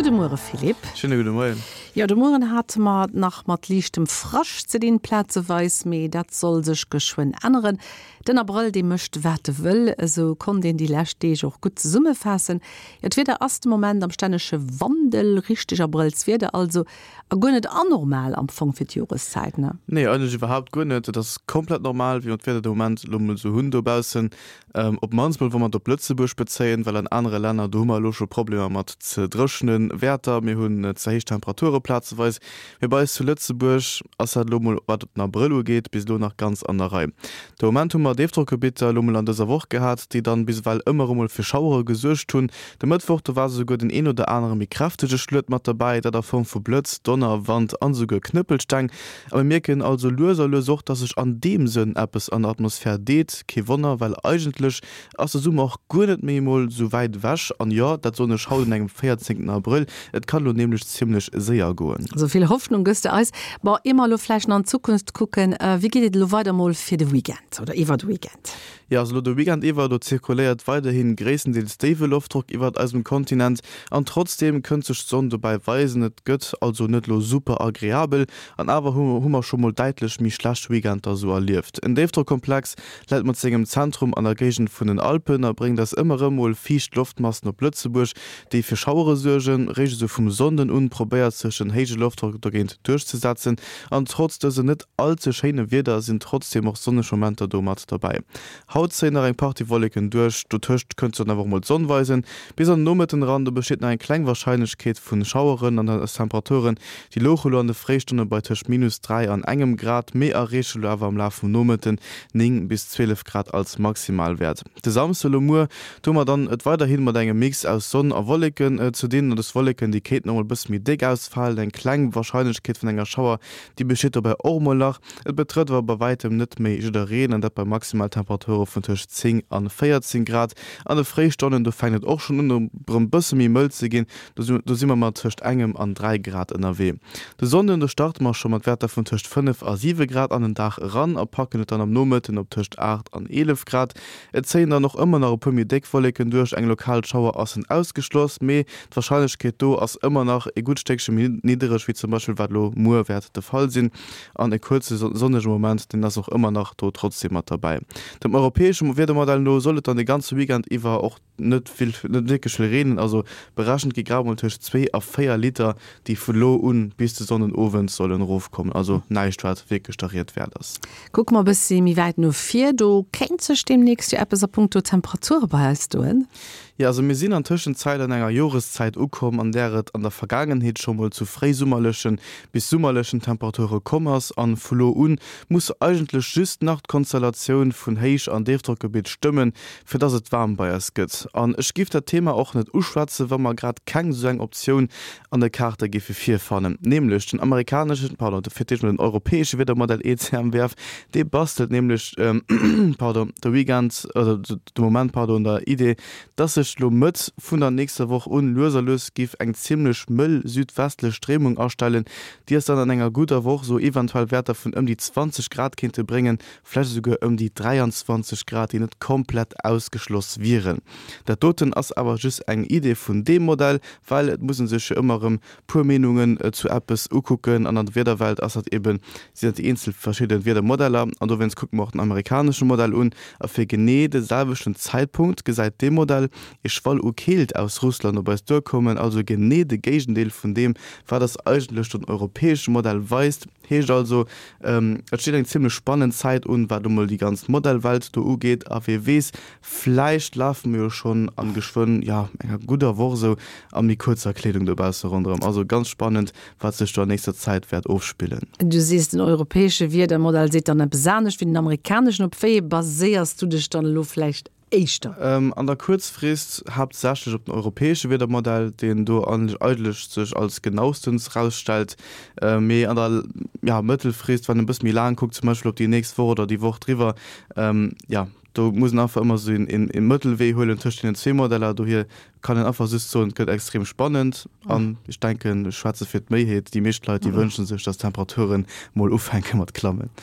Gudde Muere Philippe. Schéine gudde Moien. Jo, de Mueren hate mer et nach mat liichtem Frascht ze dinn, plazeweis, mee dat soll sech geschwënn änneren. Den Abrëll, dee mécht wat e wëll, esou konnt een déi lescht Deeg och gutt zesummefaassen. Jo, d'Wieder ass de Moment am stännege Wandel, richteg Abrëllswieder also, a guer net anormal am Fong fir d'Joreszäit, ne? Nee, eigentlech iwwerhaapt guer net. Et ass komplett normal, wéi mer d'Wieder de Moment elo mol esou hunn dobaussen. Op d'mannst mol, wa mer et op Lëtzebuerg bezéien, well an anere Länner, do hu mer elo scho Problemer mat ze dréchene Wäerter, mir hunn ze héich Temperature plazeweis. Mee bei eis zu Lëtzebuerg ass dat elo mol, wat den Abrëll ugeet, bis elo nach ganz an der Rei. De Moment hu mer Déifdrockgebitter elo mol an dëser Woch gehat, déi dann bis ewell ëmmer erëm mol fir Schauere gesuergt hunn. De Mëttwoch, do war esouguer den een oder anere méi kräftege Schluet mat derbäi, dat a Form vu Blëtz, Donner, Wand an esouguer Knëppelsteng. A mir mierken also lues a lues och, dass sech an deem Sënn eppes an der Atmosphär deet. Kee Wonner, well eigentlech ass de Summer och guer net méi emol sou wäit ewech. An jo, dat soen ech haut un engem 14 Abrëll, et kann elo nämlech zimmlech séier goen. Sou vill Hoffnung gëss de eis. Bon, ier mer elo vläicht nach an d'Zukunft kucken, wéi geet et elo weider mol fir de Weekend oder iwwer de Weekend? Jo, also elo de Weekend iwwer, do zirkuléiert weiderhi gréisstendeels déiwe Loftdrock iwwert eisem Kontinent an trotzdeem kënnt sech d'Sonn dobäi weisen. Et gëtt also net elo super agreabel an awer hu mer scho mol däitlech méi schlecht Weekender sou erlieft. En Déifdrockkomplex läit mat sengem Zentrum an der Géigend vun den Alpen a bréngt eis ëmmer erëm mol fiicht Loftmassen op Lëtzebuerg, déi fir Schauere suergen. Réischt esou vum Sonnden un probéiert sech en héije Loftdrock dogéint duerchzesetzen an trotz dësem net all ze schéine Wieder sinn trotzdeem och sonneg Momenter do mat derbäi. Haut zéien nach eng Partie Wolleken duerch, dotëscht kënnt sech dann awer och mol d'Sonn weisen. Bis an den Nomëtten eran, do besteet nach eng kleng Warscheinlechkeet vu Schaueren an eis Temperaturen, déi louche lo an de Fréistonne bei tëscht minus 3 an engem Grad, mee erreeche lo awer am Laf vum Nomëtten 9 bis 12 Grad als Maximalwäert. De Samsde lo muer, do hu mer dann et weiderhi mat engem Mix aus Sonn a Wolleken ze dinn. An dës Wolleken, déi kéinten och mol e bësse méi déck ausfalen, eng kleng Warscheinlechkeet vun enger Schauer Déi besteet dobäi och emol nach. Et betrëtt awer bei wäitem net méi jiddereen, an dat bei Maximaltemperature vun tëscht 10 an 14 Grad. An de Fréistonnen, do fänkt et och schonn un erëm bësse méi mëll ze ginn, do si mer mat tëscht engem an 3 Grad ënnerwee. De Sonnden, do starte mer scho mat Wäerter vun tëscht 5 a 7 Grad an den Dag eran a packen et dann am Nomëtten op tëscht 8 an 11 Grad. Et zéien dann och ëmmer nach e puer méi déck Wolleken duerch, eng lokal Schauer ass en ausgeschloss, mee d'Warscheinlechkeet do ass ëmmer nach e gutt Stéckche méi niddereg wéi zum Beispill wat elo muer wäert de Fall sinn. An e kuerze sonnege Moment, deen ass och ëmmer nach do trotzdeem mat derbäi. Dem europäesche Wiedermodell no soll et dann de ganze Weekend iwwer och net vill, net wierklech vill reenen, also berechent gi grad mol tëscht 2 a 4 Liter, déi vu lo un bis de Sonnden Owend sollen erofkommen, also näischt wat wierklech der Ried wäert ass. Kucke mer e bëssi méi wäit no vir, do kéint sech deemnächst jo eppes a punkto Temperature bei eis doen. Jo, also mir sinn an Tëschenzäit an enger Joreszäit ukomm, an där et an der Vergaangenheet scho mol zu fréisummerlechen bis summerlechen Temperature komm ass, an vu lo un muss eigentlech just nach d'Konstellatioun vun Héich an Déifdrockgebitt stëmmen, fir dass et waarm bei eis gëtt. An ech giff dat Thema och net uschwätzen, wa mer grad keng sou eng Optioun an de Kaarte giffe virfannen, nämlech den amerikaneschen, pardon, fir d'éischt mol den europäesche Wiedermodell ECMWF, dee bastelt nämlech, pardon, de Weekend, oder de Moment, pardon, un der Idee, dass sech lo Mëtt vun der nächster Woch un lues a lues giff eng zimmlech mëll südwestlech Stréimung astellen, déi eis dann an enger gudder Woch sou eventuell Wäerter vun ëm déi 20 Grad kéinte bréngen, vläicht esouguer ëm déi 23 Grad, déi net komplett ausgeschloss wieren. Dat doten ass awer just eng Idee vun deem Modell, well et muss e sech jo ëmmer erëm puer Meenungen zu eppes ukucken an an der Wiederwelt ass dat eben, sinn dat déi eenzel verschidde Wiedermodeller an dowéinst kucke mer och den amerikanesche Modell un a fir genee de selwechten Zäitpunkt gesäit dee Modell ee Schwall u Keelt aus Russland op eis duerkommen, also genee de Géigendeel vun deem wat eis eigentlech den europäesche Modell weist. Heescht also, et steet eng zimmlech spannend Zäit un, wat emol déi ganz Modellwelt do ugeet. A wee weess, vläicht lafe mer jo schonn an geschwënn, jo, enger gudder Woch esou a méi kuerzer Kleedung dobausse ronderëm. Also ganz spannend, wat sech do an nächster Zäit wäert ofspillen. Du sees, den europäesche Wiedermodell seet dann eppes anescht wéi den amerikaneschen. Op wéi ee baséiers du dech dann elo vläicht éischter? An der Kuerzfrist haaptsächlech op den europäesche Wiedermodell, deen do eigentlech sech als genaustens rausstellt, mee an der, ja, Mëttelfrist, wann een e bësse méi laang kuckt, zum Beispill op déi nächst Woch oder déi Woch driwwer, ja, do muss een einfach ëmmer esou een Mëttelwee huelen tëscht deenen zwee Modeller. Dohier kann een einfach just soen, et gëtt extrem spannend an ech denken, ech schwätze fir d'Méiheet, déi meescht Leit, déi wënsche sech, dass d'Temperaturen mol ufänke mat klammen.